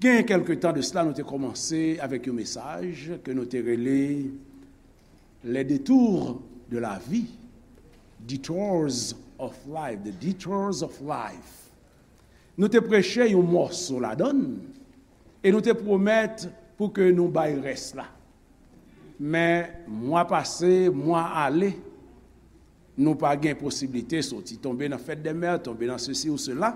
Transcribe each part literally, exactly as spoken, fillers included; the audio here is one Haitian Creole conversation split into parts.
Gen kèlke tan de sila, nou te kòmanse avèk yon mesaj ke nou te rele Les détours de la vie, Detours of Life, The Detours of Life. Nou te preche yon mòso ladan l e nou te pwomèt pou ke nou bay rès la. Men mwa pase, mwa ale, nou pa gen posiblite soti, tonbe nan fèt dè mè, tonbe nan sesi ou sela.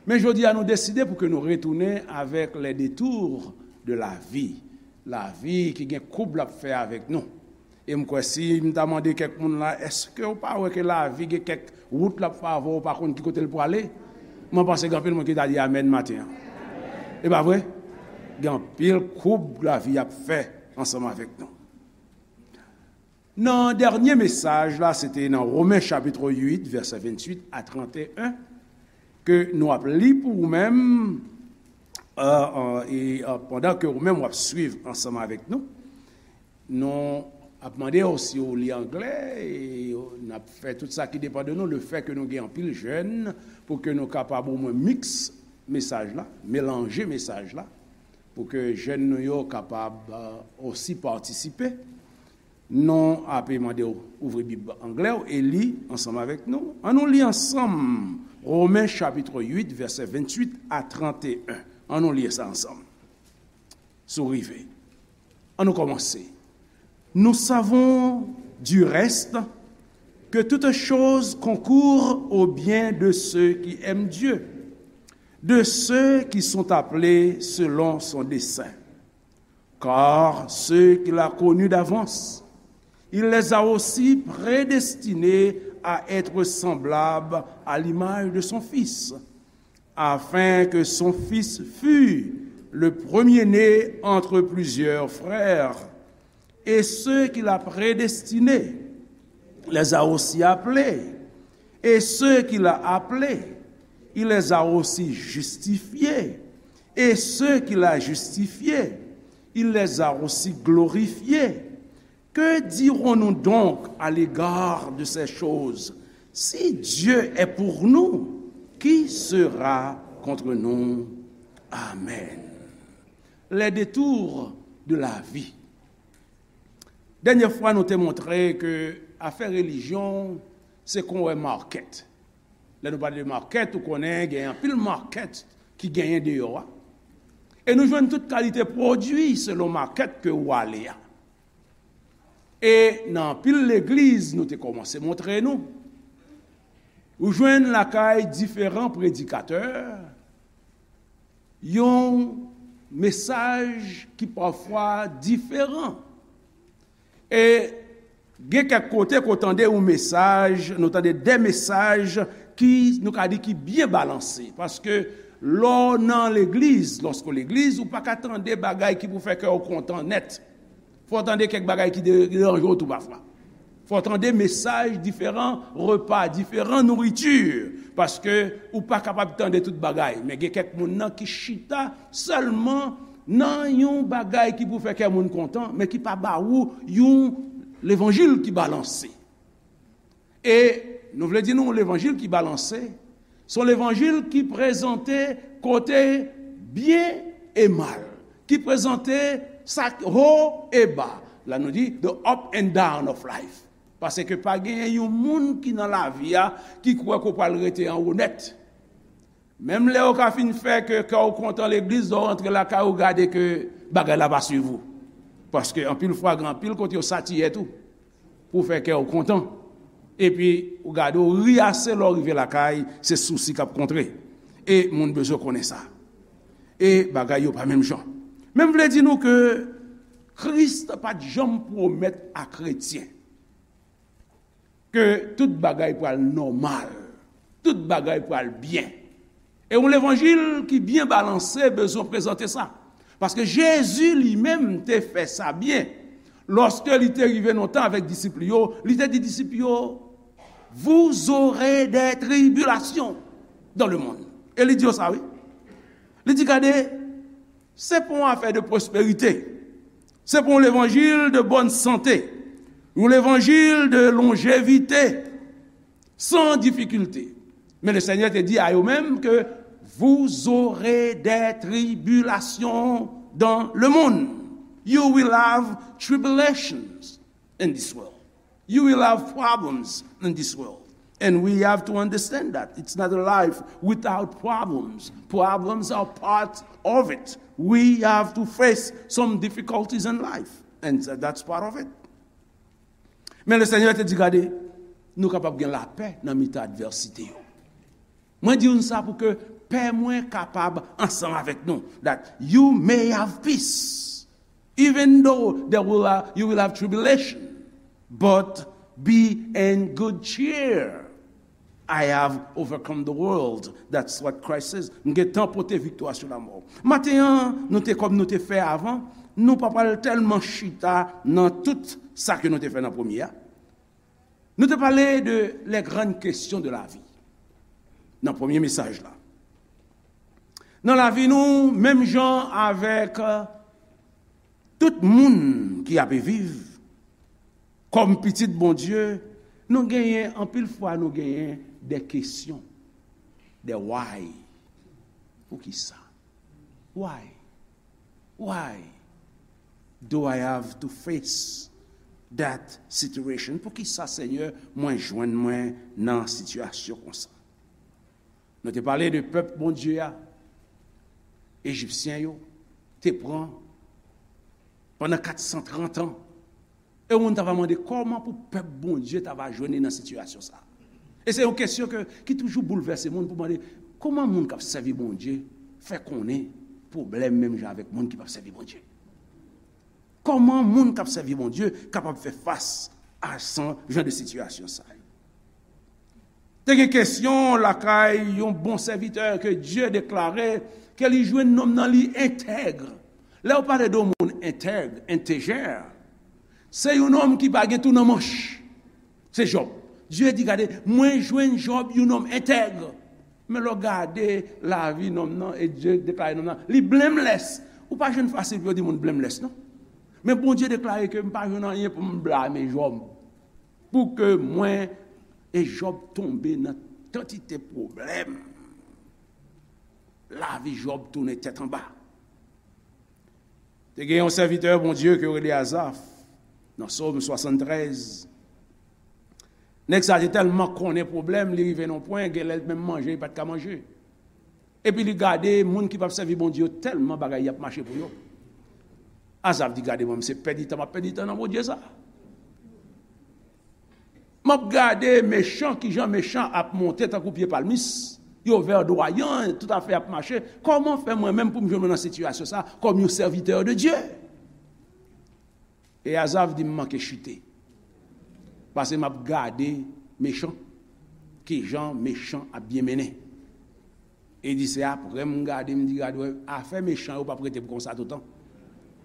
Men jodi a, nou deside pou ke nou retounen avèk les détours de la vie. Lavi ki gen koub l ap fè avèk nou. E m kwè si m ta mande kèk moun la, èske w pa wè ke lavi gen kèk wout l ap fè avè w, ou pa konn ki kote l prale? Mwen panse gen anpil moun ki ta di amèn maten an. E pa vre? Gen anpil koub lavi ap fè ansanm avèk nou. Nan dènye mesaj la, se te nan Women chapit uit, vèsè venntuit a tranteyen, ke nou ap li pou ou menm, euh, euh, e, euh, pandan ke ou menm w ap swiv ansanm avèk nou. Nou ap mande w si w li anglè, e n ap fè tout sa ki depann de nou. Lefètke nou gen anpil jèn, pou ke nou kapab omwen miks mesaj la, melanje mesaj la, pou ke jèn nou yo kapab, euh, osi patisipe. Nou ape mande w ouvri Bib anglè w e li ansanm avèk nou. Ann nou li ansanm Women chapit uit, vèsè venntuit a tranteyen. Ann nou li sa ansanm. Si w rive. Ann nou kòmanse. Nous savons du reste que toutes choses concourent au bien de ceux qui aiment Dieu, de ceux qui sont appelés selon son dessein. Car ceux qu'il a connus d'avance, il les a aussi prédestinés à être semblables à l'image de son Fils, afin que son Fils fût le premier-né entre plusieurs frères. Et ceux qu'il a prédestinés, les a aussi appelés. Et ceux qu'il a appelés, il les a aussi justifiés. Et ceux qu'il a justifiés, il les a aussi glorifiés. Que dirons-nous donc à l'égard de ces choses? Si Dieu est pour nous, qui sera contre nous? Amen. Les détours de la vie. Dènye fwa, nou te montre ke afè relijyon se kon wè makèt. Lè nou pale de makèt, ou konnen gen anpil makèt ki genyen deyò a. E nou jwenn tout kalite pwodui selon makèt ke ou ale a. E nan anpil legliz, nou te kòmanse montre nou, ou jwenn lakay diferan predikatè, yon mesaj ki pafwa diferan. E gen kèk kote ke w tande yon mesaj, nou tande de mesaj ki, nou ka di, ki byen balanse. Paske lè w nan legliz, lòske w legliz, ou pa ka tande bagay ki pou fè kè w kontan nèt. Fò w tande kèk bagay ki de-, deranje w tou pafwa. Fò w tande mesaj diferan, repa diferan, nouriti. Paske ou pa kapab tande tout bagay. Men gen kèk moun nan ki chita sèlman nan yon bagay ki pou fè kè moun kontan, men ki pa ba ou yon levanjil ki balanse. E nou vle di nou, levanjil ki balanse, se yon levanjil ki prezante kote byen e mal, ki prezante sa k wo e ba. La nou di, the up and down of life. Paske pa genyen yon moun ki nan lavi a ki kwè ke w pral rete anwo nèt. Menm lè yo ka fin fè ke kè w kontan legliz, lè w rantre lakay ou, gade ke bagay la pa swiv ou. Paske anpil fwa, gen anpil kote yo satiyè tou pou fè kè w kontan. Epi ou gade, ou ri ase, lè w rive lakay, se sousi k ap kontre. E moun bezwen konnen sa. E bagay yo pa menm jan. Men m vle di nou ke Kris pa t janm pwomèt a kretyen ke tout bagay pral nòmal, tout bagay pral byen. E yon levanjil ki byen balanse bezwen prezante sa. Paske Jezi li menm te fè sa byen. Lòske li te rive nan yon tan avèk disip li yo, li te di disip yo, vous aurez des tribulations dans le monde. E li di yo sa, wi. Li di, gade, se pa yon afè de pwosperite. Se pa yon levanjil de bòn sante. Yon levanjil de lonjevite, san difikilte. Men le Senyè te di a yo menm ke Vous aurez des tribulations dans le monde. You will have tribulations in this world. You will have problems in this world. And we have to understand that it's not a life without problems. Problems are part of it. We have to face some difficulties in life, and that's part of it. Men le Senyè te di, gade, nou kapab gen lapè nan mitan advèsite yo. Mwen di nou sa pou ke pè mwen kapab ansanm avèk nou. That you may have peace, even though there will, uh, you will have tribulation, but be in good cheer. I have overcome the world. That's what Christ says. M gentan pote viktwa sou lanmò. Maten an, nou te, kòm nou te fè avan, nou pa pral tèlman chita nan tout sa ke nou te fè nan premye a. Nou te pale de les grandes questions de la vie nan premye mesaj la. Nan lavi nou, menm jan avèk, euh, tout moun ki ape viv, kòm pitit Bondye, nou genyen, anpil fwa, nou genyen de kesyon, de why. Poukisa? Why? Why do I have to face that situation? Poukisa, Senyè, mwen jwenn mwen nan sitiyasyon konsa? Nou te pale de pèp Bondye a, Ejipsyen yo te pran pandan kat san trant an. E yon moun ta va mande kòman pou pèp Bondye ta va jwenn li nan sitiyasyon sa a. E se yon kesyon ke, ki toujou boulvèse moun pou mande, kòman moun k ap sèvi Bondye fè konnen pwoblèm menm jan avèk moun ki p ap sèvi Bondye? Kòman moun k ap sèvi Bondye kapab fè fas a san jan de sitiyasyon sa yo? Te gen kesyon lakay yon bon sèvitè ke Dye deklare ke li jwenn nonm nan li entèg. Lè yo pale de yon moun entèg, entegè, se yon nonm ki pa gen tou nan manch. Se Jòb. Dye di, gade, mwen jwenn Jòb yon nonm entèg. Men lè w gade lavi nonm nan, e Dye deklare nonm nan, li blameless. Ou pa jwenn fasil pou yo di moun blameless, non. Men Bondye deklare ke m pa jwenn anyen pou m blame Jòb. Pou ke mwen e Jòb tonbe nan kantite pwoblèm. Lavi Jòb tounen tèt anba. Te gen yon sèvitè Bondye ke yo rele Azaf, nan Sòm swasanntrèz. Nèg sa te tèlman konnen pwoblèm, li rive nan pwen, genlè l menm manje, li pa t ka manje. Epi li gade moun ki p ap sèvi Bondye yo, tèlman bagay y ap mache pou yo. Azaf di, gade mwen, se pèdi tan m ap pèdi tan nan Bondye sa. M ap gade mechan, kijan mechan ap monte tankou pye palmis, yo vèdwayan, tout afè ap mache. Kòman fè mwen menm pou m jwenn mwen nan sitiyasyon sa a kòm yon sèvitè de Dye? E Azaf di, m manke chite. Paske m ap gade mechan, kijan mechan ap byen mennen. E di, se apre m gade, m di, gade, wè, afè mechan yo p ap rete pou konsa toutan.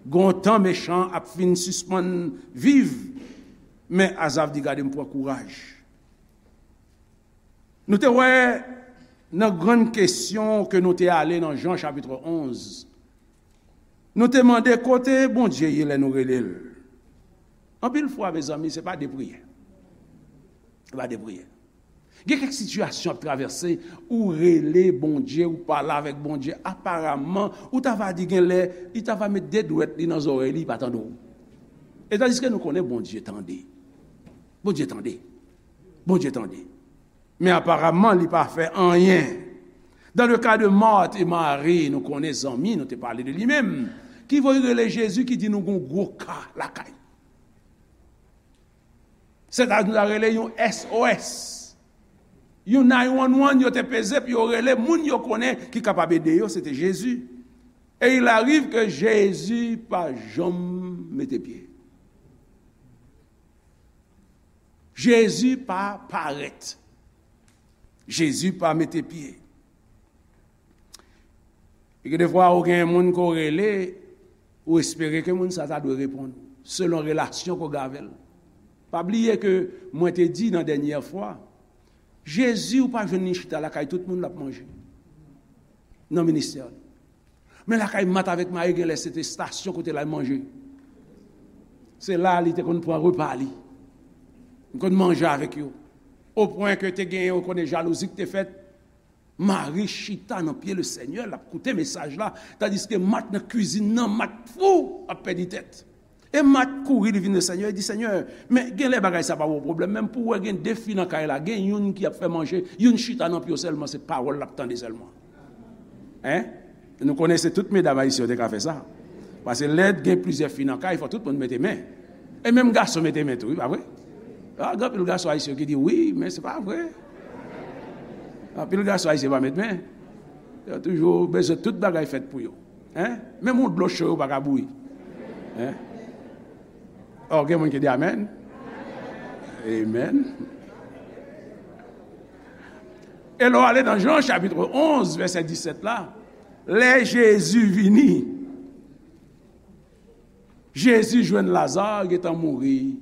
Gon tan mechan ap fin sispann viv. Men Azaf di, gade, m pran kouraj. Nou te wè nan grann kesyon ke nou te ale nan Jan chapit onz. Nou te mande kote Bondye ye lè nou rele l. Anpil fwa, mezanmi, se pa de priyè. Se pa de priyè. Gen kèk sitiyasyon ap travèse, ou rele Bondye, ou pale avèk Bondye, aparamman, ou ta va di genlè, li ta va met de dwèt li nan zòrèy li, li pa tande w. E tandiske nou konnen Bondye tande. Bondye tande. Bondye tande. Men aparamman, li pa fè anyen. Dans le cas de Marthe et Marie, nou konnen zanmi, nou te pale de li menm, ki voye rele Jezi, ki di nou gon gwo ka lakay. Se ta, nou ta rele yon S O S. Yon nine one one, yo te peze pou yo rele moun yo konnen ki kapab ede yo, se te Jezi. Et il arrive que Jezi pa janm mete pye. Jezi pa parèt. Jezi pa mete pye. E gen defwa ou gen moun ke w rele, ou espere ke moun sa ta dwe reponn, selon relasyon ke w gen avè l. Pa bliye ke mwen te di nan dènyè fwa, Jezi ou pa jwenn li chita lakay tout moun l ap manje nan ministè li. Men lakay Mat avèk Mari genlè se te estasyon kote l al manje. Se la li te konn pran repa li. Li konn manje avèk yo. Opwen ke te genyen, ou konnen, jalouzi ki te fèt. Mari chita nan pye Lesenyè, l ap koute mesaj la, tandiske Mat nan kwizin nan, Mat fou, ap pèdi tèt. E Mat kouri, li vin Lesenyè, li di, Senyè, men genlè bagay sa pa yon pwoblèm, menm pou w wè gen de fi nan kay la, gen youn ki ap fè manje, youn chita nan pye w sèlman, se pawòl l ap tande sèlman. Hein? Nou konnen se tout medam ayisyen yo te ka fè sa. Paske lè gen plizyè fi nan kay, fò tout moun mete men. E menm gason mete men tou, wi, pa vre? A, gen anpil gason ayisyen ki di wi, men se pa vre. Anpil gason ayisyen pa met men. Yo toujou bezwen tout bagay fèt pou yo. Hein? Menm yon dlo cho yo pa ka bouyi. Hein? Ò, gen moun ki di amèn. Amen. E lè w ale nan Jan chapit onz, vèsè disèt la, lè Jezi vini, Jezi jwenn Laza gentan mouri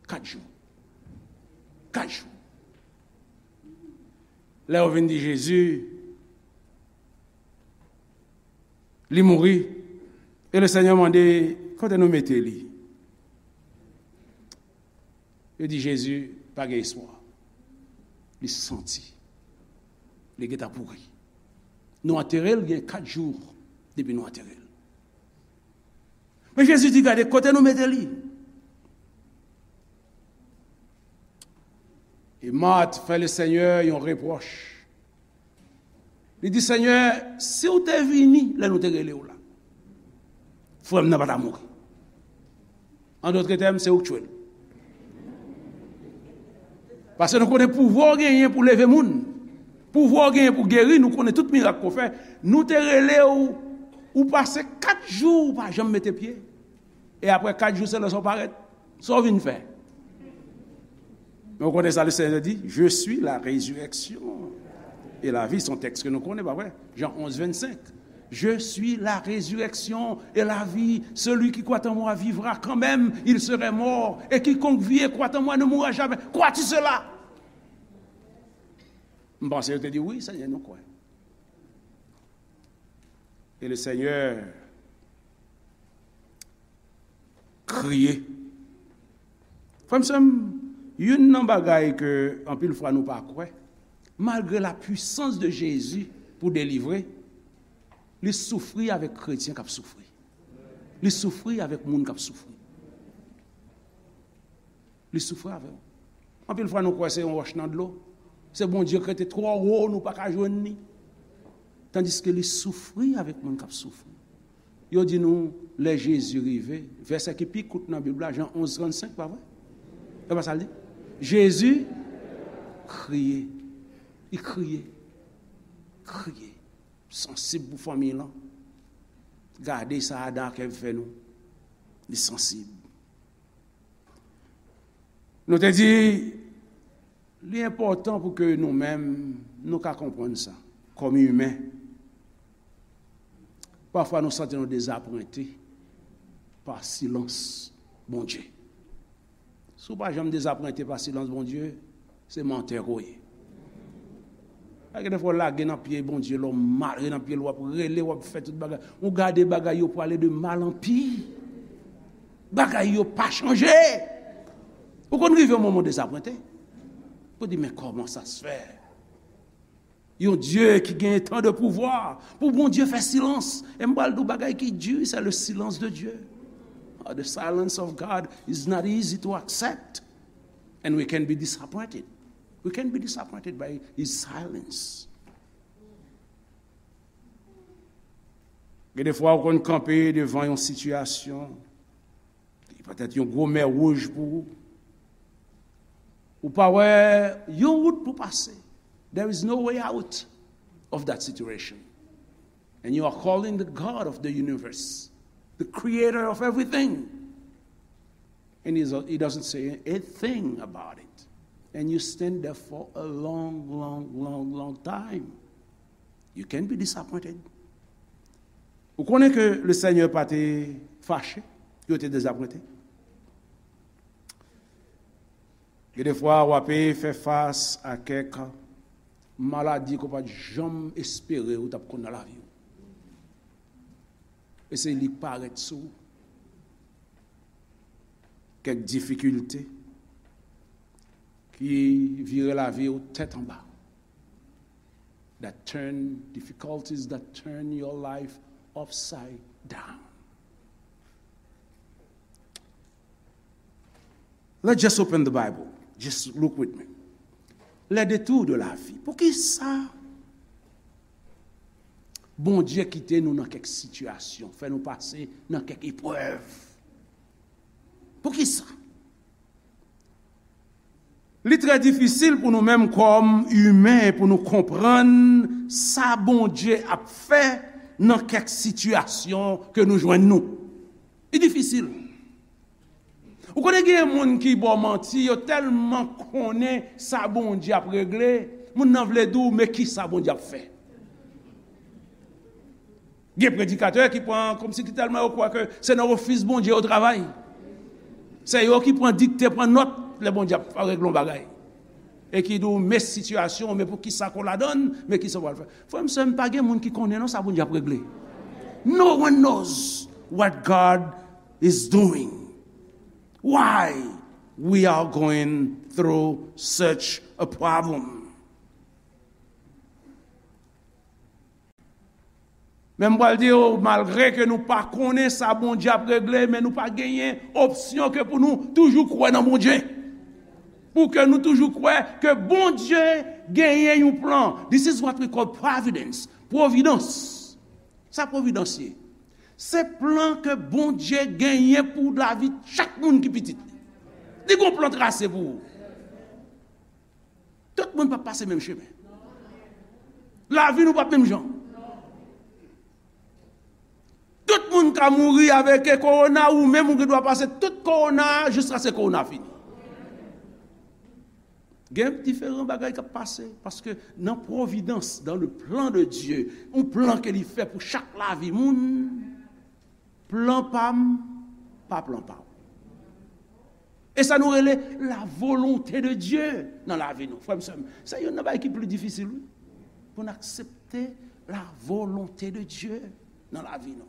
kat jou. Kat jou. Lè yo vin di Jezi, li mouri, e Lesenyè mande, kote nou mete li? Yo di Jezi, pa gen espwa. Li santi. Li gentan pouri. Nou antere l, gen kat jou depi nou antere l. Men Jezi di, gade, kote nou mete li? E Mat fè Lesenyè yon repwòch. Li di, Senyè, si w te vini lè nou te rele w la, frè m nan pa ta mouri. An dòt tèm, se ou k tchwe l. Paske nou konnen pouvwa w genyen pou leve moun. Pouvwa w genyen pou geri, nou konnen tout mirak ke w fè. Nou te rele w, ou pase kat jou ou pa janm mete pye. E apre kat jou, se lè sa w parèt. Sa w vin fè? Men w konnen sa Lesenyè di, Je suis la résurrection et la vie. Se yon tèks ke nou konnen, pa vre? Jan onz vennsenk. Je suis la résurrection et la vie. Celui qui croit en moi vivra quand même il serait mort. Et quiconque vit et croit en moi ne mourra jamais. Crois-tu cela? M panse yo te di, wi, Senyè, nou kwè. E Lesenyè kriye. Frè m, sè m, youn nan bagay ke anpil fwa nou pa kwè, malgre la puissance de Jésus pou delivre, li soufri avèk kretyen k ap soufri. Li soufri avèk moun k ap soufri. Li soufri avè w. Anpil fwa nou kwè se yon wòch nan dlo. Se Bondye k rete twò wo, nou pa ka jwenn li. Tandiske li soufri avèk moun k ap soufri. Yo di nou, lè Jezi rive, vèsè ki pi kout nan Bib la, Jan onz trannsenk, pa vre? E pa sa l di? Jezi kriye. Li kriye. Kriye. Sansib pou fanmi lan. Gade sa Adan ak Èv fè nou. Li sansib. Nou te di, li enpòtan pou ke nou menm, nou ka konprann sa, kòm imen. Pafwa nou santi nou dezapwente pa silans Bondye. Si w pa janm dezapwente pa silans Bondye, se mantè ke w ye. Gen de fwa w lage nan pye Bondye, lè w mare nan pye l, w ap rele, w ap fè tout bagay. Ou gade bagay yo prale de mal an pi. Bagay yo pa chanje. Ou konn rive yon moman w dezapwente. Ou di, men kòman sa se fè? Yon Dye ki gen tan de pouvwa, pou Bondye fè silans. E m pral di w bagay ki di, c'est le silence de Dieu. Ah, the silence of God is not easy to accept. And we can be disappointed. We can be disappointed by his silence. Gen de fwa ou konn kanpe devan yon sitiyasyon, li petèt yon gwo mè wouj pou ou. Ou pa wè yon wout pou pase. There is no way out of that situation. And you are calling the God of the universe, the creator of everything. And he's, he doesn't say a thing about it. And you stand there for a long, long, long, long time. You can be disappointed. Ou konnen ke Lesenyè pa te fache, yo te dezapwente. Gen de fwa, w ape fè fas a kèk maladi ke w pa t janm espere ou t ap konn nan lavi w. E se li k parèt sou ou. Kèk difikilte ki vire lavi w tèt anba. that turn, difficulties that turn your life upside down. Let's just open the Bible. Just look with me. Les détours de la vie. Poukisa Bondye kite nou nan kèk sitiyasyon, fè nou pase nan kèk eprèv? Poukisa? Li trè difisil pou nou menm kòm imen pou nou konprann sa Bondye ap fè nan kèk sitiyasyon ke nou jwenn nou. Li difisil. Ou konnen gen moun ki ba w manti, yo tèlman konnen sa Bondye ap regle, moun nan vle di w, men kisa Bondye ap fè? Gen predikatè ki pran, kòmsi ki tèlman yo kwè ke se nan ofis Bondye yo travay. Se yo ki pran dikte, pran nòt, lè Bondye ap regle yon bagay. E ki di w, men sitiyasyon, men poukisa ke w ladann, men kisa w pral fè. Frè m, sè m, pa gen moun ki konnen non sa Bondye ap regle. No one knows what God is doing. Why we are going through such a problem. Men m pral di w, malgre ke nou pa konnen sa Bondye ap regle, men nou pa genyen opsyon ke pou nou toujou kwè nan Bondye. Pou ke nou toujou kwè ke Bondye genyen yon plan. This is what we call providence. Pwovidans. Sa pwovidans ye? Se plan ke Bondye genyen pou lavi chak moun ki pitit li. Li gon plan trase pou ou. Tout moun p ap pase menm chemen. Lavi nou p ap menm jan. Tout moun ka mouri avèk kowona, ou menm ou gen dwa pase tout kowona a jiskaske kowona a fini. Gen diferan bagay k ap pase, paske nan pwovidans, dans le plan de Dieu, yon plan ke li fè pou chak lavi moun, plan pa m, pa plan pa w. E sa nou rele la volonté de Dieu nan lavi nou. Frè m, sè m, se youn nan bagay ki pli difisil, wi. Pou n aksepte la volonté de Dieu nan lavi nou.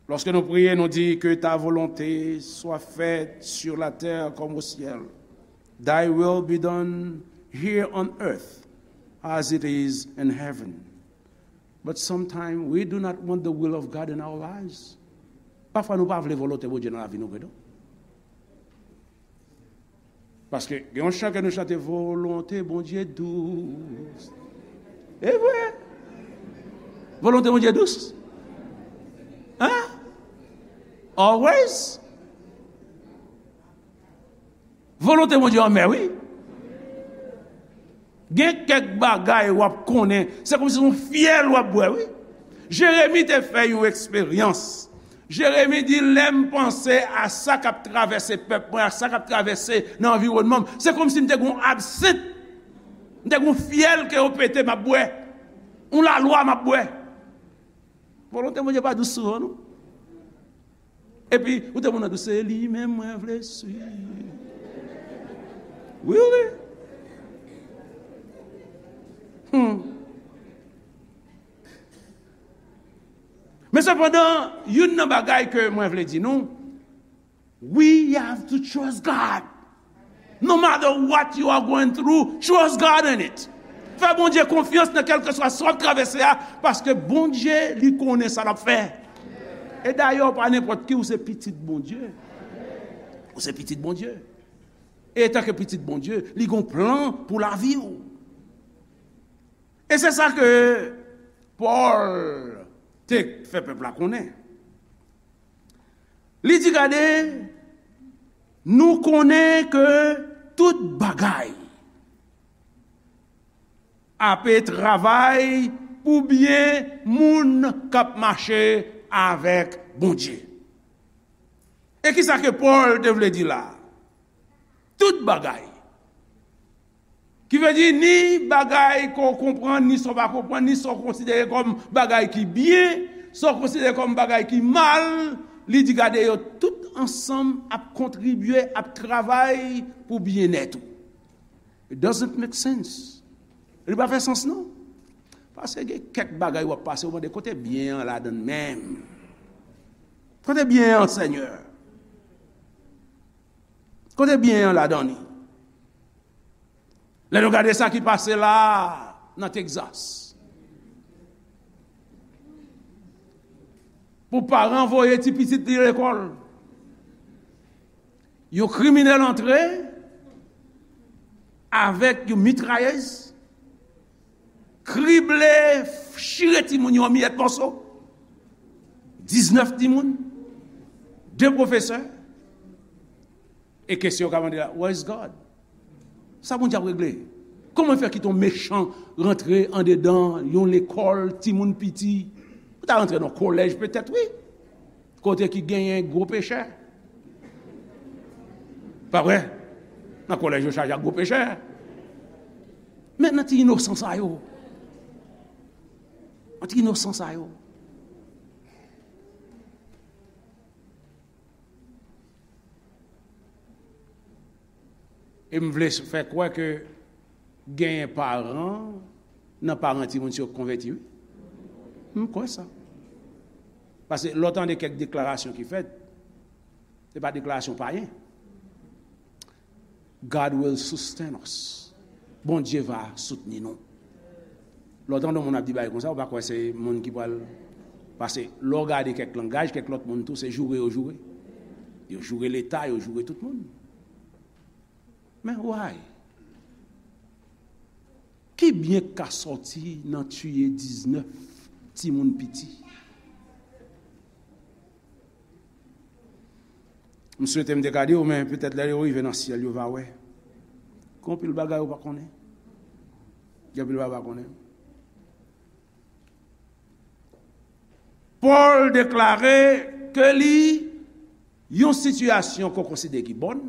Lòske nou priye, nou di, que ta volonté soit faite sur la terre comme au ciel. Thy will be done here on earth as it is in heaven. But sometimes we do not want the will of God in our lives. Pafwa nou pa vle volonte Bondye nan lavi nou vre non. Paske gen yon chan ke nou chante, volonte Bondye dous. E vre. Volonte Bondye dous. Hein? Always. Volonte Bondye anmè, wi. Gen kèk bagay w ap konnen, se kòmsi se yon fyèl w ap bwè, wi. Jeremi te fè yon eksperyans. Jeremi di, lè m panse a sa k ap travèse pèp mwen, a sa k ap travèse nan anviwònman m, se kòmsi m te gen yon absent, m te gen yon fyèl ke yo pete m ap bwè, yon lalwa m ap bwè. Volonte Bondye pa dous souvan, non. Epi, ou te moun nan di, se li menm mwen vle swiv. Wi, wi. Hmm. Men sepandan, youn nan bagay ke mwen vle di nou, we have to trust God. No matter what you are going through, trust God in it. Fè Bondye konfyans nan kèlkeswa sa w ap travèse a, paske Bondye, li konnen sa l ap fè. E dayè, w pa nenpòt ki, ou se pitit Bondye. Ou se pitit Bondye. E etanke pitit Bondye, li gon plan pou lavi w. E se sa ke Pòl te fè pèp la konnen. Li di, gade, nou konnen ke tout bagay ape travay pou byen moun k ap mache avèk Bondye. E kisa ke Pòl te vle di la? Tout bagay. Ki vle di, ni bagay ke w konprann, ni sa w pa konprann, ni sa w konsidere kòm bagay ki byen, sa w konsidere kòm bagay ki mal, li di, gade, yo tout ansanm ap kontribye, ap travay pou byennèt ou. It doesn't make sense. Li pa fè sans, non. Paske gen kèk bagay w ap pase, w mande, kote byen an ladan l menm? Kote byen an, Senyè? Kote byen an ladan li? Lè nou gade sa ki pase la nan Texas, pou paran voye ti pitit li lekòl, yon kriminèl antre avèk yon mitrayèz, krible, chire timoun yo an miyèt mòso. Diznèf timoun, de pwofesè. E kesyon yo ka mande la, "Where is God?" Sa Bondye ap regle? Kòman fè kite yon mechan rantre andedan yon lekòl, timoun piti? Ou ta rantre nan kolèj petèt, wi. Kote ki genyen gwo pechè. Pa vre? Nan kolèj yo chaje ak gwo pechè. Men nan ti inosan sa yo. Nan ti inosan sa yo. E m vle fè kwè ke genyen paran nan paran timoun sa yo k konvèti, wi. M kwè sa. Paske lè w tande kèk deklarasyon ki fèt, se pa deklarasyon payen. "God will sustain us." Bondye va soutni nou. Lè w tande yon moun ap di bagay konsa, ou pa kwè se moun ki pral pase. Lè w gade kèk langaj, kèk lòt moun tou, se joure yo joure. Yo joure Leta, yo joure tout moun. Men why? Ki byen k ka sòti nan tiye diznèf timoun piti? M swete m te ka di w, men petèt lè yo rive nan syèl, yo va wè. Gen anpil bagay ou pa konnen. Gen anpil bagay ou pa konnen. Pòl deklare ke li, yon sitiyasyon ke w konsidere ki bòn,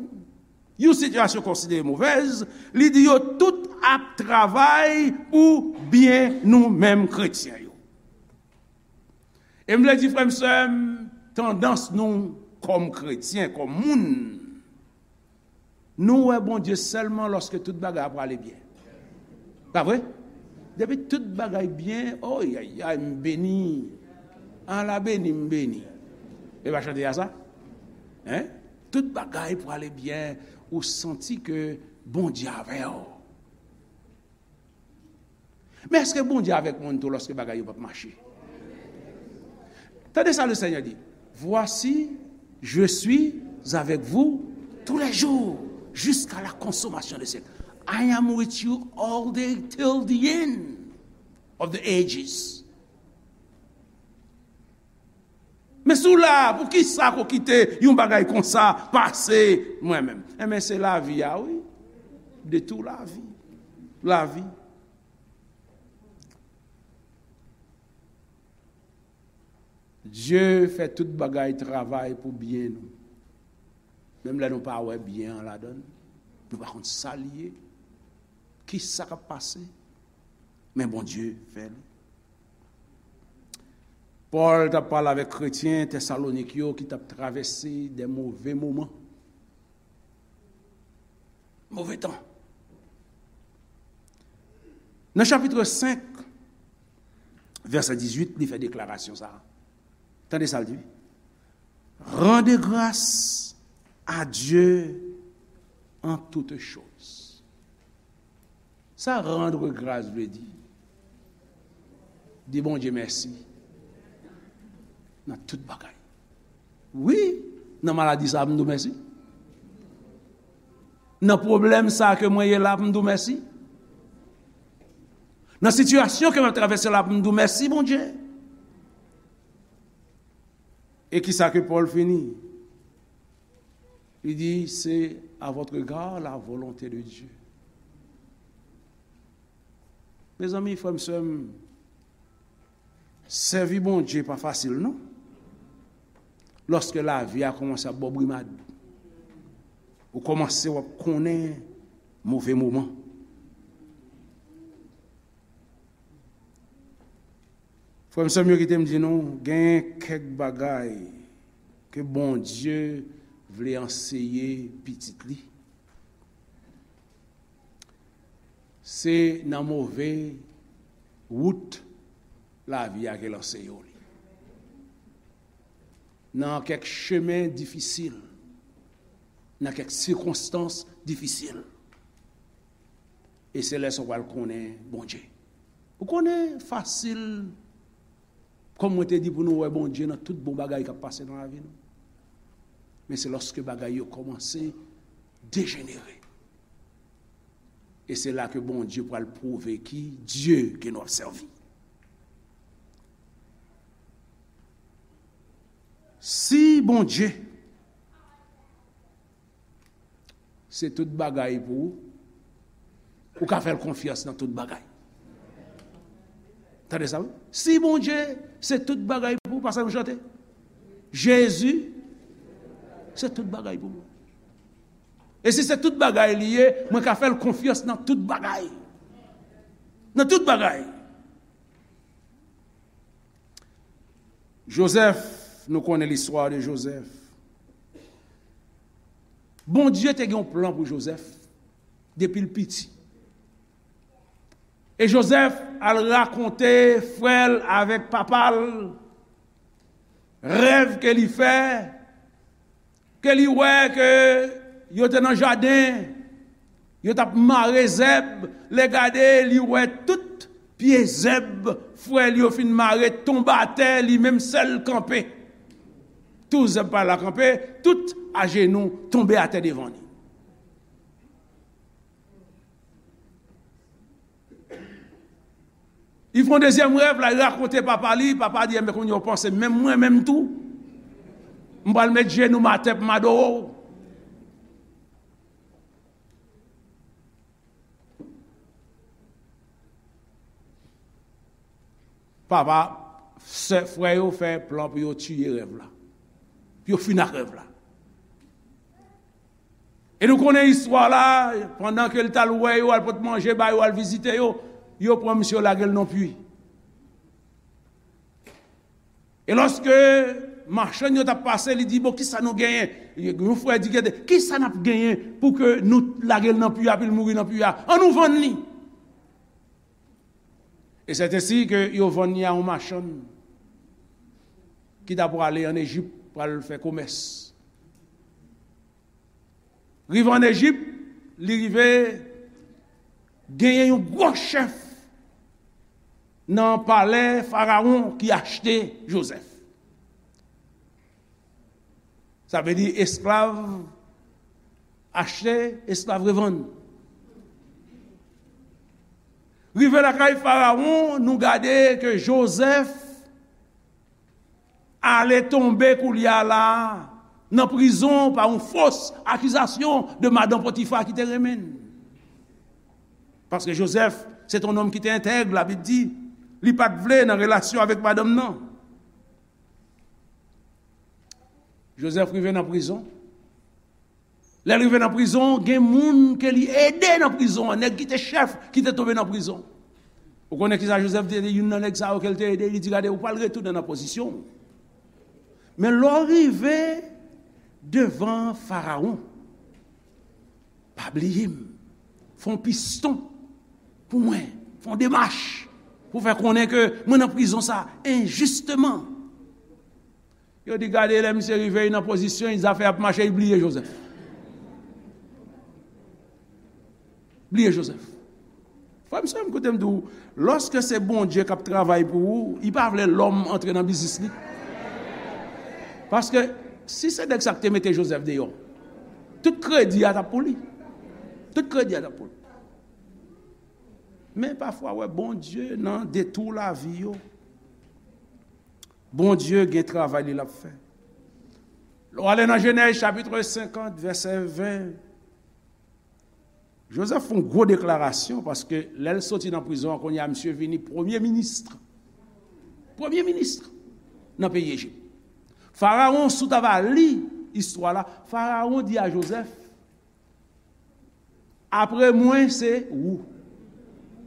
yon sitiyasyon konsidere movèz, li di yo tout ap travay pou byen nou menm kretyen yo. E m vle di, frè m, sè m, tandans nou kòm kretyen, kòm moun, nou wè Bondye sèlman lòske tout bagay ap prale byen. Pa vre? Depi tout bagay byen, oyayay, m beni. Ala beni, m beni. E pa chante a sa? Hein? Tout bagay prale byen, ou santi ke Bondye avè w. Men èske Bondye avèk moun tou lòske bagay yo p ap mache? Tande sa Lesenyè di, "Voici, je suis avec vous tous les jours, jusqu'à la consommation des siècles." I am with you all day till the end of the ages. Men si w la, poukisa ko kite yon bagay konsa pase mwen menm? Enben, se lavi a, wi. De tou lavi. Lavi. Dye fè tout bagay travay pou byen nou. Menm lè nou pa wè byen an ladan l, nou pa konn sa l ye, kisa k ap pase, men Bondye fè l. Pòl t ap pale avèk kretyen Tesalonik yo ki t ap travèse de move moman. Move tan. Nan chapit senk, vèsè dizuit, li fè deklarasyon sa a. Tande sa l di. Rendez grâce à Dieu en toutes choses. Sa rendre grâce vle di? Di Bondye mèsi nan tout bagay. Wi, nan maladi sa a, m di w mèsi. Nan pwoblèm sa a ke mwen ye la, m di w mèsi. Nan sitiyasyon ke m ap travèse la, m di w mèsi, Bondye. E kisa ke Pòl fini? Li di, c'est à votre égard la volonté de Dieu. Mezanmi, frè m, sè m, sèvi Bondye pa fasil, non. Lòske lavi a kòmanse ap ba w brimad, ou kòmanse w ap konnen move moman. Frè m, sè m yo, kite m di nou, gen kèk bagay ke Bondye vle anseye pitit li. Se nan move wout lavi a ke l anseye w li. Nan kèk chemen difisil, nan kèk sikonstans difisil. E se lè sa w pral konnen Bondye. Ou konnen fasil, kòm mwen te di, pou nou wè Bondye nan tout bon bagay k ap pase nan lavi nou. Men se lòske bagay yo kòmanse dejenere. E se la ke Bondye pral pwouve ki Dye ke nou ap sèvi. Si Bondye se tout bagay pou ou, ou ka fè l konfyans nan tout bagay. Tande sa, wi. Si Bondye se tout bagay pou ou, pa sa nou chante? Jezi se tout bagay pou mwen. E si se tout bagay li ye, mwen ka fè l konfyans nan tout bagay. Nan tout bagay. Jozèf, nou konnen listwa de Jozèf. Bondye te gen yon plan pou Jozèf depi l piti. E Jozèf al rakonte frè l avèk papa l rèv ke li fè, ke li wè ke yo te nan jaden, yo t ap mare zèb, lè gade, li wè tout pye zèb frè l yo fin mare tonbe atè, li menm sèl kanpe. Tout zèb pa la kanpe, tout ajenou tonbe atè devan li. Li fè yon dezyèm rèv la, li rakonte papa li, papa di, "Enben, kounye a w panse menm mwen menm tou? M pral met jenou m atè pou m adore w." Papa, sè, frè yo fè plan pou yo tiye rèv la. Pou yo fini ak rèv la. E nou konnen istwa la, pandan ke l t al wè yo, al pot manje ba yo, al vizite yo, yo pran misye, yo lage l nan pwi. E lòske machann yo t ap pase, li di, "Bon, kisa nou genyen?" Yon frè di, "Gade, kisa n ap genyen pou ke nou lage l nan pwi a, pou l mouri nan pwi a? Ann nou vann li." E sèt ensi ke yo vann li a yon machann ki ta prale ann Ejip, pral fè komès. Rive ann Ejip, li rive genyen yon gwo chèf nan palè Farawon ki achte Jozèf. Sa vle di esklav achte, esklav revann. Rive lakay Farawon, nou gade ke Jozèf ale tonbe koulye a la nan prizon pa yon fos akizasyon de madan Potifa ki te renmen l. Paske Jozèf, se te yon nonm ki te entèg, Labib di, li pa t vle nan relasyon avèk madanm nan. Jozèf rive nan prizon. Lè l rive nan prizon, gen moun ke li ede nan prizon an, nèg ki te chèf, ki te tonbe nan prizon. Ou konnen kisa Jozèf te di youn nan nèg sa yo ke l te ede? Li di, "Gade, ou pral retounen nan pozisyon w. Men lè w rive devan Farawon, pa bliye m. Fè yon piston pou mwen. Fè yon demach pou fè konnen ke mwen nan prizon sa enjisteman." Yo di, "Gade, lè misye rive, li nan pozisyon, li zafè ap mache, li bliye Jozèf." Bliye Jozèf. Frè m, sè m, koute m di w, lòske se Bondye k ap travay pou ou, li pa vle lòm antre nan biznis li. Paske si se nèg sa k te mete Jozèf deyò, tout kredi a t ap pou li. Tout kredi a t ap pou li. Men pafwa, wè, Bondye nan detou lavi yo. Bondye gen travay li l ap fè. Lè w ale nan Jenèz chapit senkant, vèsè ven, Jozèf fè yon gwo deklarasyon, paske lè l soti nan prizon an, kounye a misye vini premye minis. Premye minis nan peyi Ejip. Farawon, si w ta va li istwa la, Farawon di a Jozèf, "Apre mwen, se ou.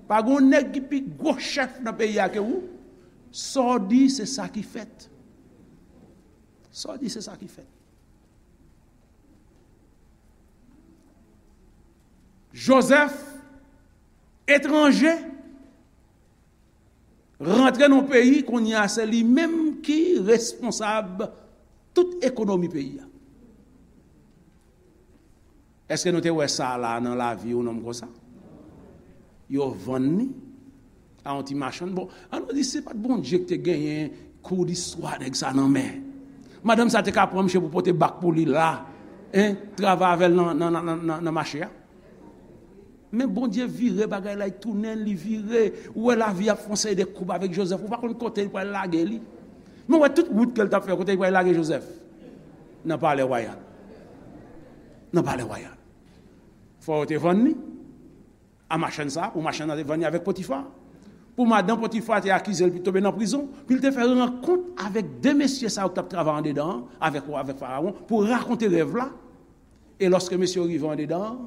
Pa gen yon nèg ki pi gwo chèf nan peyi a ke ou. Sa w di, se sa ki fèt. Sa w di, se sa ki fèt." Jozèf, etranje, rantre nan peyi, kounye a se li menm ki responsab tout ekonomi peyi a. Èske nou te wè sa la nan lavi yon nonm konsa? Yo vann li a yon ti machann. Bon, ann nou di se pa t Bondye ki te genyen kou distwa nèg sa nan men. Madanm sa te ka pran misye pou pote bak pou li la, en, travay avè l nan, nan, nan, nan, nan, nan mache a. Men Bondye vire bagay la, li tounen, li vire. Ou wè lavi ap fè yon seri de koub avèk Jozèf. Ou pa konn kote li pral lage li. Men ou wè tout wout ke l t ap fè, kote li pral lage Jozèf? Nan palè wayal. Nan palè wayal. Fò yo te vann li a machann sa, pou machann nan te vann li avèk Potifa. Pou madanm Potifa te akize l, pou l tonbe nan prizon, pou l te fè rankont avèk de mesye sa yo ki t ap travay andedan an, avèk, avèk Farawon, pou rakonte rèv la. E lòske mesye yo rive andedan an,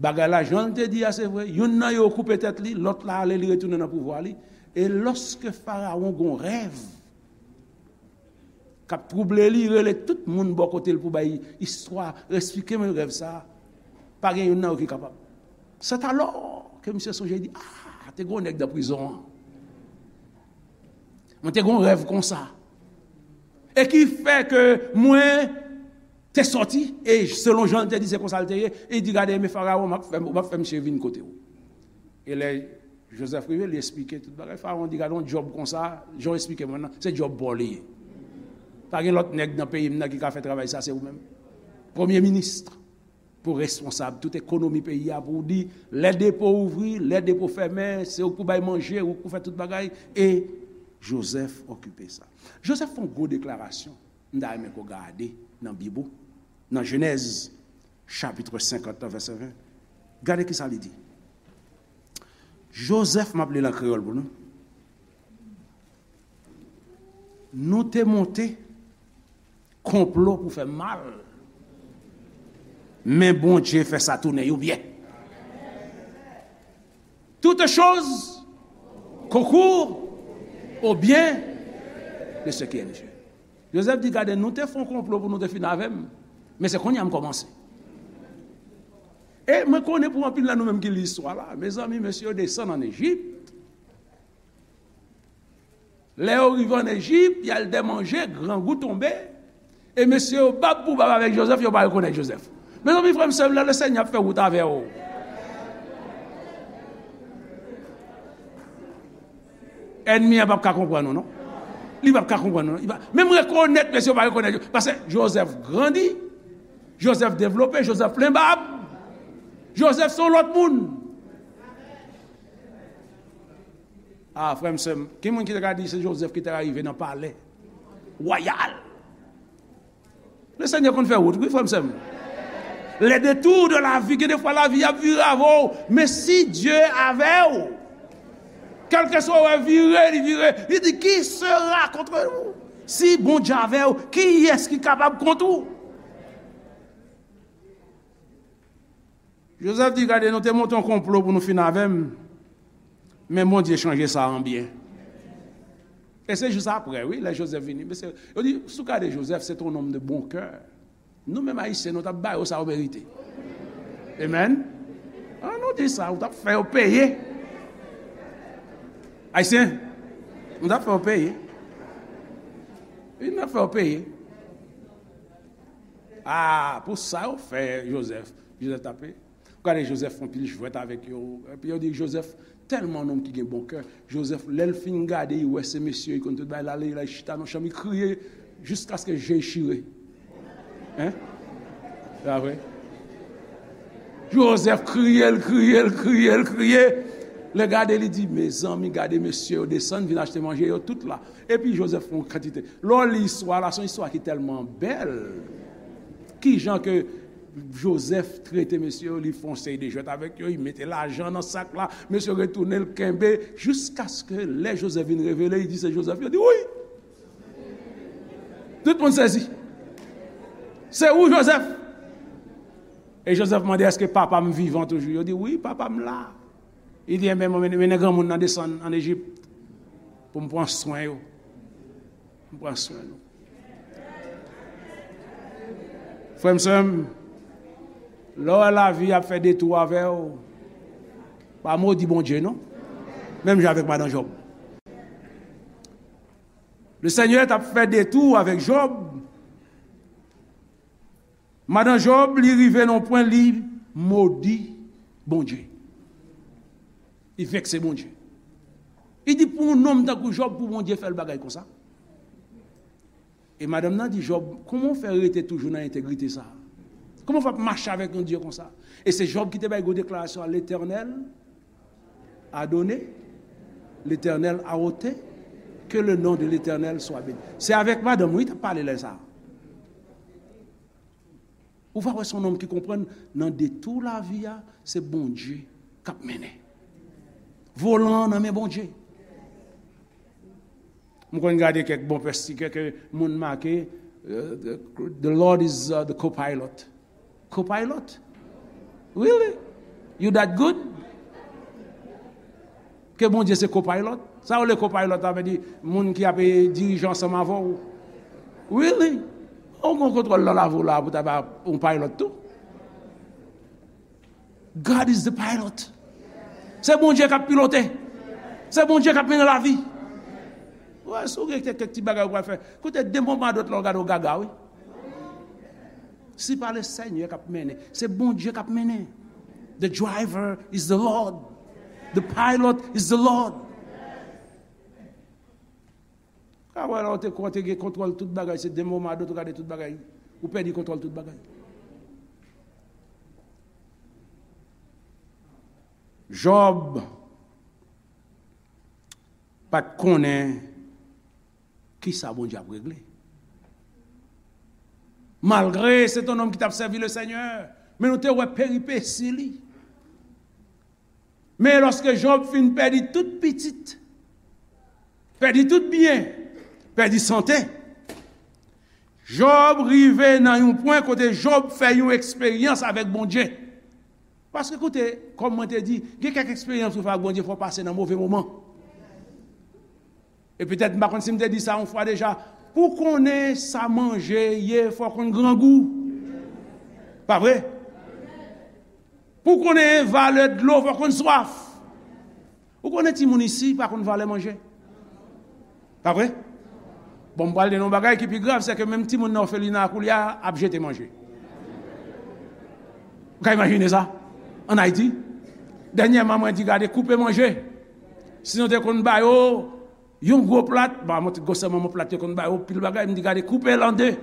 bagay la, jan l te di a, se vre, youn nan yo koupe tèt li, lòt la ale, li retounen nan pouvwa li. E lòske Farawon gon rèv k ap twouble li, rele tout moun bò kote l pou bay istwa, esplike mwen rèv sa a. Pa gen youn nan yo ki kapab. Sèt alò ke misye sonje, li di, "Ah, te gon nèg nan prizon an. Mwen te gon rèv konsa. E ki fè ke mwen te sòti, e selon jan l te di, se konsa l te ye." E li di, "Gade, men Farawon, m ap fè, m ap fè misye vin kote w." E lè Jozèf rive, li esplike tout bagay. Farawon di, "Gade yon djòb konsa, jan w esplike mwen nan, se djòb pa w li ye. Pa gen lòt nèg nan peyi m nan ki ka fè travay sa, se ou menm. Premye minis, pou responsab tout ekonomi peyi a, pou w di, lè depo ouvri, lè depo fèmen, se ou k pou bay manje, ou k pou fè tout bagay." E Jozèf okipe sa. Jozèf fè yon gwo deklarasyon. M ta renmen ke w gade nan Bib ou, nan Jenèz, chapit senkant, vèsè ven. Gade ki sa li di. Jozèf, m ap li l an kreyòl pou nou. Nou te monte konplo pou fè mal, men Bondye fè sa tounen yon byen. Toutes choses concourent au bien de ceux qui aiment Dieu. Jozèf di, "Gade, nou te fè yon konplo pou nou te fin avè m, men se kounye a m kòmanse." E mwen konnen pou anpil nan nou menm ki li istwa la, mezanmi, mesye yo desann ann Ejip. Lè yo rive ann Ejip, y al dè manje, grangou tonbe. E mesye yo bab pou bab avèk Jozèf, yo pa rekonèt Jozèf. Mezanmi, frè m, sè m, lè Lesenyè ap fè wout avè w, ènmi an p ap ka konprann ou, non. Li p ap ka konprann ou, non. Li pa, menm rekonèt, mesye yo pa rekonèt. Paske Jozèf grandi, Jozèf devlope, Jozèf plen bab. Jozèf se yon lòt moun. Ah, frè m, sè m, ki moun ki te ka di se Jozèf ki te ka rive nan palè wayal? Lesenyè konn fè wout, wi, frè m, sè m. Les détours de la vie, gen de fwa lavi ap vire avè w, men si Dye avè w, kèlkeswa w wè vire, li vire, li di, "Qui sera contre vous?" Si Bondye avè w, kiyès ki kapab kont ou? Jozèf di, "Gade, nou te monte yon konplo pou nou fin avè m, men Bondye chanje sa an byen." E se jis apre, wi, lè Jozèf vini. Mesye, yo di, si w gade Jozèf, se te yon nonm de bon kè. Nou menm Ayisyen, nou t ap ba yo sa yo merite. Amen. An nou di sa, ou t ap fè yo peye. Ayisyen, nou t ap fè yo peye. Wi, nou t ap fè yo peye. Ah, pou sa yo fè Jozèf. Jozèf tape. Gade Jozèf fè yon pil jwèt avèk yo. Epi yo di Jozèf tèlman nonm ki gen bon kè. Jozèf, lè l fin gade, li wè se mesye, li konn tout bagay, l ale, l al chita nan chanm, li kriye jiskaske je l chire. Hein? Se pa vre? Jozèf kriye, l kriye, l kriye, l kriye. Lè gade, li di, "Mezanmi, gade mesye yo desann, vin achte manje, yo tout la." Epi Jozèf fè yon kantite. Lè w li istwa la, se yon istwa ki tèlman bèl. Kijan ke Jozèf trete mesye yo, li fè yon seri de jwèt avèk yo, li mete lajan nan sak la, mesye yo retounen, l kenbe, jiskaske lè Jozèf vin revele, li di se Jozèf, yo di, "Wi!" Tout moun sezi. "Se ou, Jozèf?" E Jozèf mande, "Èske papa m vivan toujou?" Yo di, "Wi, papa m la." Li di, "Enben, mwen mennen, mennen granmoun nan desann ann Ejip pou m pran swen yo. M pran swen nou." Frè m, sè m, lè w wè lavi ap fè detou avè w, pa modi Bondye, non. Menm jan avèk madan Jòb. Lesenyè t ap fè detou avèk Jòb. Madan Jòb, li rive nan yon pwen, li modi Bondye. Li vekse Bondye. Li di, pou yon nonm tankou Jòb, pou Bondye fè l bagay konsa. E madanm nan di Jòb, kòman w fè rete toujou nan entegrite sa a? Kòman w fè ap mache avèk yon Dye konsa? E se Jòb ki te bay gwo deklarasyon a, Letènèl a done, Letènèl a ote, ke le non de Letènèl swa beni. Se avèk madanm wi, t ap pale lè sa a. Ou va wè se yon nonm ki konprann nan detou lavi a, se Bondye k ap mennen. Volan an nan men Bondye. M konn gade kèk bon pèsti, kèk moun make, uh, the Lord is uh, the co-pilot. Co-pilot? Really? You that good? Ke Bondye se co-pilot? Sa yo le co-pilot la vle di moun ki ap dirije ansanm avè w. Really? Ou gon kontwòl nan lavi w la pou ta ba yon pilot tou? God is the pilot. Se Bondye k ap pilote. Se Bondye k ap mennen lavi. Wè, si w gen kèk ti bagay ou pral fè, koute, de moman a dòt la w gade w gaga wi. Si pa le Senyè k ap mennen, se Bondye k ap mennen. The driver is the Lord. The pilot is the Lord. Ka wè la ou te kwè ou te gen kontwòl tout bagay, se de moman a dòt ou gade tout bagay, ou pèdi kontwòl tout bagay. Jòb pa t konnen kisa Bondye ap regle. Malgre se te yon nonm ki t ap sèvi le Senyè, men nou te wè peripesi li. Men lòske Jòb fin pèdi tout pitit, pèdi tout byen, pèdi sante, Jòb rive nan yon pwen kote Jòb fè yon eksperyans avèk Bondye. Paske koute, kòm mwen te di, gen kèk eksperyans ou fè ak Bondye, fò w pase nan move moman. E petèt, m pa konn si m te di sa yon fwa deja, pou konnen sa manje ye, fò w konn grangou. Pa vre? Pou konnen valè dlo, fò w konn swaf. Ou konnen timoun isi pa konn valè manje. Pa vre? Bon, m pral di nou yon bagay ki pi grav, se ke menm timoun nan òfelina a koulye a ap jete manje. Ou ka imajine sa? Ann Ayiti, dènyèman, mwen di, gade, koupe manje. Si nou te konn ba yo yon gwo plat, ba, mwen te gwosè manman plat yo konn ba yo pil bagay, m di, gade, koupe l an de.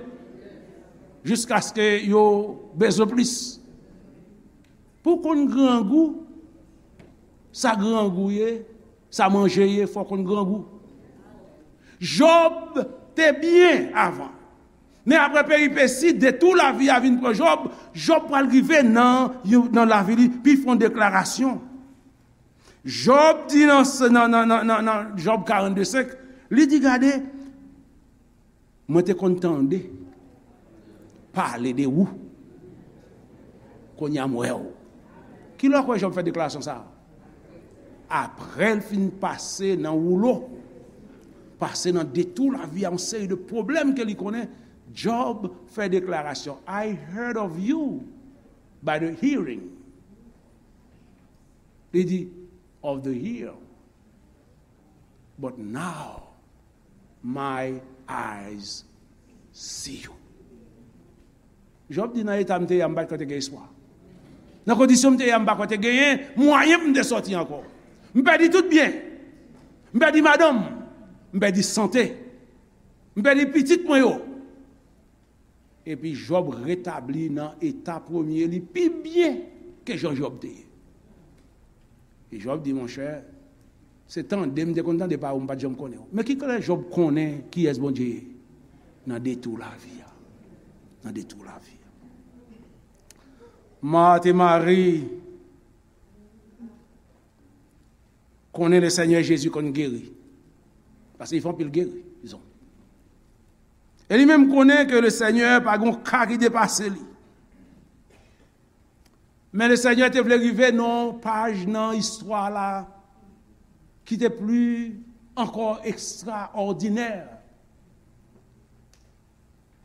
Jiskaske yo bezwen plis. Pou w konn grangou, sa grangou ye, sa manje ye, fò w konn grangou. Jòb te byen avan. Men apre peripesi, detou lavi a vin pran Jòb, Jòb pral rive nan, nan lavi li, pi fè yon deklarasyon. Jòb di nan, nan, nan, nan, nan, nan Jòb karannde senk, li di, gade, mwen te konn tande pale de ou. Kounye a m wè w. Kilè w kwè Jòb fè deklarasyon sa a? Apre l fin pase nan woulo, pase nan detou lavi a, yon seri de pwoblèm ke li konnen, Jòb fè deklarasyon, I heard of you by the hearing. Li di, of the hear. But now my eyes see you. Jòb di, nan eta m te ye a, m pa t kwè te gen espwa. Nan kondisyon m te ye a, m pa kwè te genyen mwayen pou m te sòti ankò. M pèdi tout byen. M pèdi madanm. M pèdi sante. M pèdi pitit mwen yo. Epi Jòb retabli nan eta premye li pi byen ke jan Jòb te ye. E Jòb di, monchè, se tande m te konn tande pawòl, m pa t janm konnen w. Men ki kote Jòb konnen kiyès Bondye ye? Nan detou lavi a. Nan detou lavi a. Mat e Mari konnen le Senyè Jezi konn geri. Paske li fè anpil gerizon. E li menm konnen ke le Senyè pa gen yon ka ki depase li. Men le Senyè te vle rive nan yon paj nan istwa la ki te pli ankò ekstraòdinè.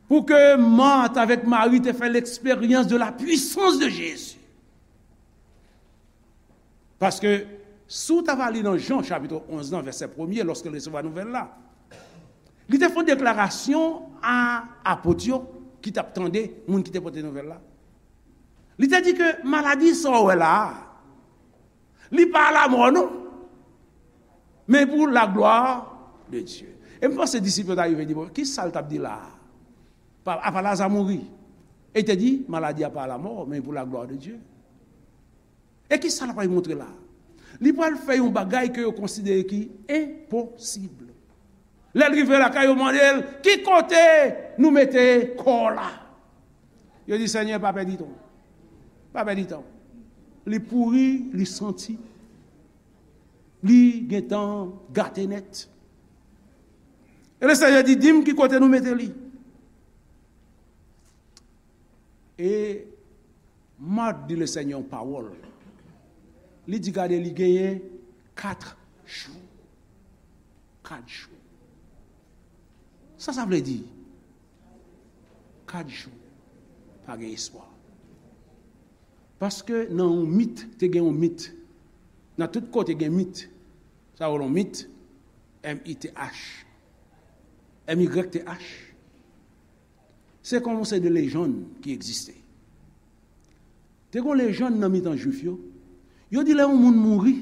Pou ke Mat avèk Mari te fè l'expérience de la puissance de Jésus. Paske, si w ta va li nan Jan chapit onz nan vèsè premye, lòske l resevwa nouvèl la, li te fè yon deklarasyon a apot yo ki t ap tande moun ki te pote nouvèl la. Li te di ke maladi sa w wè la a, Li pa a lamò non. Men pou la glwa de Dye. E m panse disip yo ta rive di, bon, ki sa l t ap di la a? Pa, apa Laza mouri? E te di, maladi a pa lamò, men pou la glwa de Dye. E ki sa l pral montre la? Li pral fè yon bagay ke yo konsidere ki enposib. Lè l rive lakay yo, mande l, ki kote nou mete kò w la? Yo di, Senyè, pa pèdi tan. Pa pèdi tan. Li pouri, li santi, li gentan gate nèt. E le Senyè di, di m ki kote nou mete li. E Mat di le Senyè yon pawòl. Li di, gade, li genyen kat jou. Kat jou. Sa sa vle di? Kat jou. Pa gen espwa. Paske nan yon mit, te gen yon mit. Nan tout kote gen mit. Sa yo yon mit, M I T H. M Y T H. Se kòm se de lejann ki egziste. Te gon lejann nan mitan Jwif yo. Yo di lè yon moun mouri,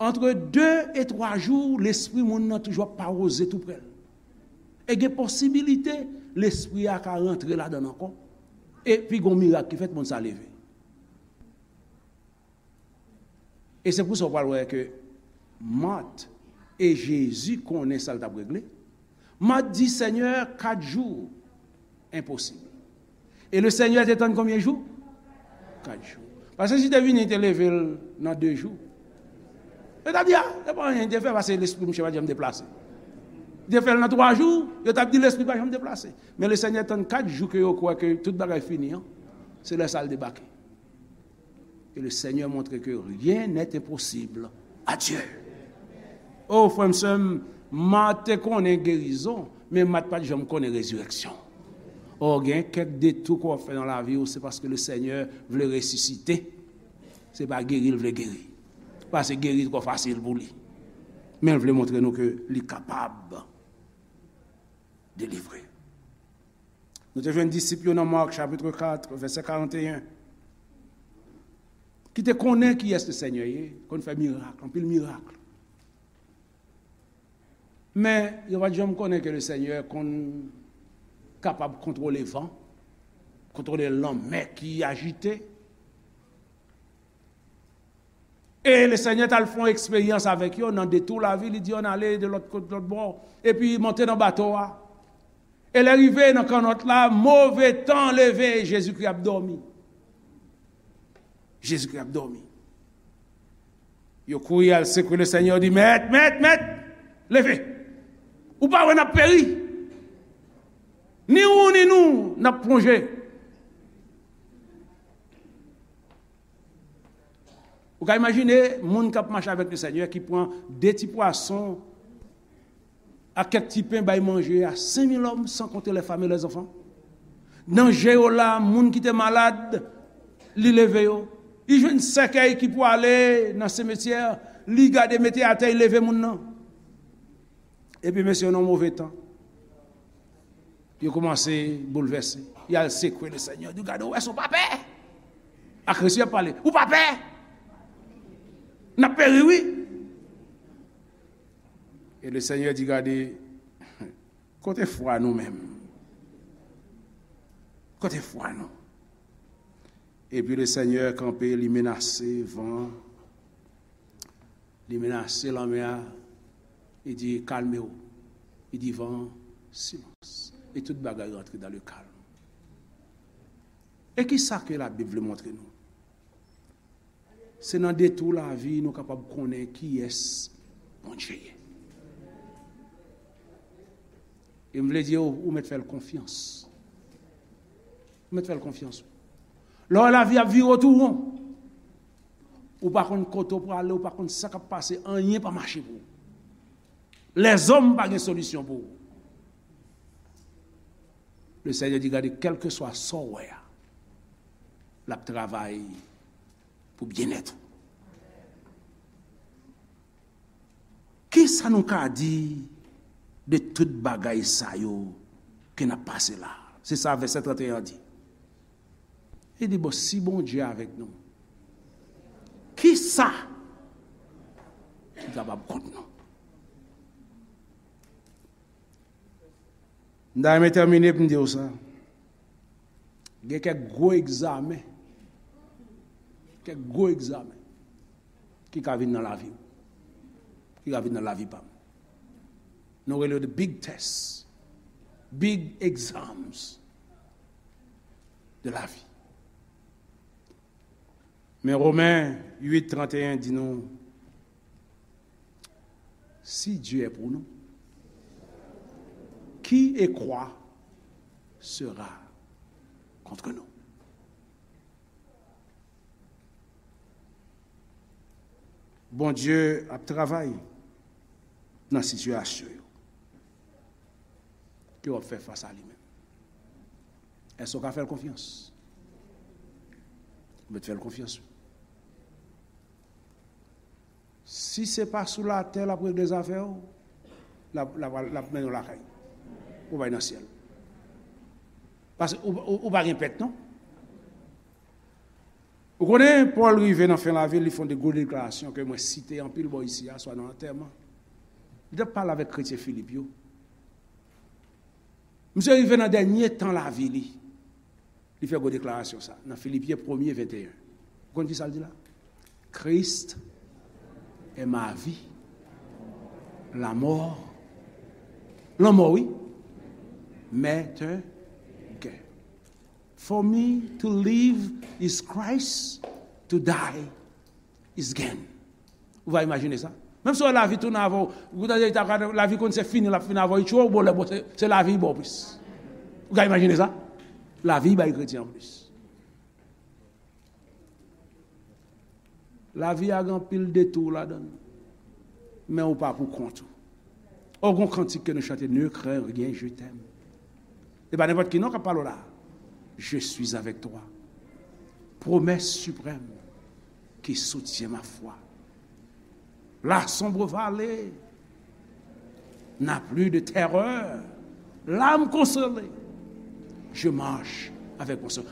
antre de e twa jou, lespri moun nan toujou ap pawòze tou prè l. E gen posibilite lespri a ka rantre ladan l ankò. Epi gon mirak ki fèt, moun sa leve. E se pou sa w pral wè ke Mat e Jezi konnen sa l t ap regle. Mat di, Senyè, kat jou, enposib. E le Senyè te tann konbyen jou? Kat jou. Paske si te vini, te leve l nan de jou. Yo t ap di, a, se pa anyen li te fè, paske lespri misye pa t janm deplase. Li te fè l nan twa jou, yo t ap di lespri pa janm deplase. Men le Senyè tann kat jou ke yo kwè ke tout bagay fini an. Se lè sa l debake. Et le Seigneur montre que rien n'est impossible à Dieu. O, frè m, sè m, Mat te konnen gerizon, men Mat pa t janm konnen rezirèksyon. O, gen kèk detou ke w ap fè nan lavi w, se paske le Senyè vle resisite. Se pa geri l vle geri. Paske geri twò fasil pou li. Men l vle montre nou ke li kapab delivre. Nou te jwenn disip yo nan Mak, chapit kat, vèsè karanteyen, ki te konnen kiyès le Senyè ye, konn fè mirak, anpil mirak. Men, yo pa t janm konnen ke le Senyè konn kapab kontwole van, kontwole lanmè ki ajite. E le Senyè t al fè yon eksperyans avèk yo nan detou lavi, li di yo, ann ale de lòt kot, lòt bò, epi monte nan bato a. E lè rive nan kannòt la, move tan leve, Jezikri ap dòmi. Jezikri ap dòmi. Yo kouri al sekwe le Senyè, yo di, Mèt, Mèt, Mèt, leve! Ou pa wè n ap peri? Ni ou, ni nou, n ap plonje. Ou ka imajine moun k ap mache avèk le Senyè ki pran de ti pwason ak kèk ti pen bay manje a senk mil òm, san konte les femmes et les enfants. Nan je yo la, moun ki te malad, li leve yo. Li jwenn sèkèy ki pwale nan simetyè, li gade mete atè, li leve moun nan. Epi mesye yo nan move tan. Yo kòmanse boulvèse. Y al sekwe le Senyè. Di, gade, ou wè sa, ou pa pè? Ak Kris y ap pale. Ou pa pè? N ap peri, wi. E le Senyè di, gade, kote fwa nou menm? Kote fwa nou? Epi le Senyè kanpe, li menase van an. Li menase lanmè a, li di, kalme w. Li di van an, silans. E tout bagay rantre dans le calme. E ki sa ke Labib vle montre nou? Se nan detou lavi nou kapab konnen kiyès Bondye ye. E m vle di w, ou mèt fè l konfyans. Ou mèt fè l konfyans. Lè w wè lavi ap vire w tou won, ou pa konn kote w prale, ou pa konn sa k ap pase, anyen pa mache pou ou. Lèzòm pa gen solisyon pou ou. Le Senyè di, gade, kèlkeswa sa w wè a, l ap travay pou byennèt ou. Kisa nou ka di de tout bagay sa yo ke n ap pase la? Se sa vèsè trannteyen an di. Li di, bon, si Bondye avèk nou, sa ki kapab kont nou. M ta renmen tèmine pou m di w sa. Gen kèk gwo egzamen, kèk gwo egzamen ki ka vin nan lavi w, ki ka vin nan lavi pa m. Nou rele yo the big tests, big exams de la vie. Men Romen uit trannteyen di nou, si Dieu est pour nous, qui et quoi sera contre nous? Bondye ap travay nan sitiyasyon yo ke w ap fè fas a li menm. Èske w ka fè l konfyans? Ou mèt fè l konfyans, wi. Si se pa sou latè l ap regle zafè w, l ap, l ap, l ap mennen w lakay. Ou bay nan syèl. Paske ou, ou, ou pa gen pèt, non? Ou konnen, Pòl rive nan fen lavi l, li fè yon de gwo deklarasyon ke mwen site anpil bò isi a, swa nan antèman. Li t ap pale avèk kretyen Filip yo. Misye rive nan dènye tan lavi li. Li fè gwo deklarasyon sa nan Filipyen premye venteyen. Ou konn ki sa l di la? Christ est ma vie. La mort. Lanmò, wi. M'est un gain. For me to live is Christ, to die is gain. Ou va imajine sa? Menm si w wè lavi tounen avè w, ou ta, ta, lavi konn se fini, l ap fini avè w, li tchwe w, bon, lè bon, se, se lavi ba w plis. Ou ka imajine sa? Lavi bay kretyen an plis. Lavi a gen anpil detou ladan l. Men ou pa pou kont ou. O, gon kantik ke nou chante, Ne crains rien, je t'aime. E pa nenpòt ki non k ap pale w la. Je suis avec toi. Promesse suprême qui soutient ma foi. La sombre vallée n'a plus de terreur. L'âme consolée, je marche avec mon Sauveur.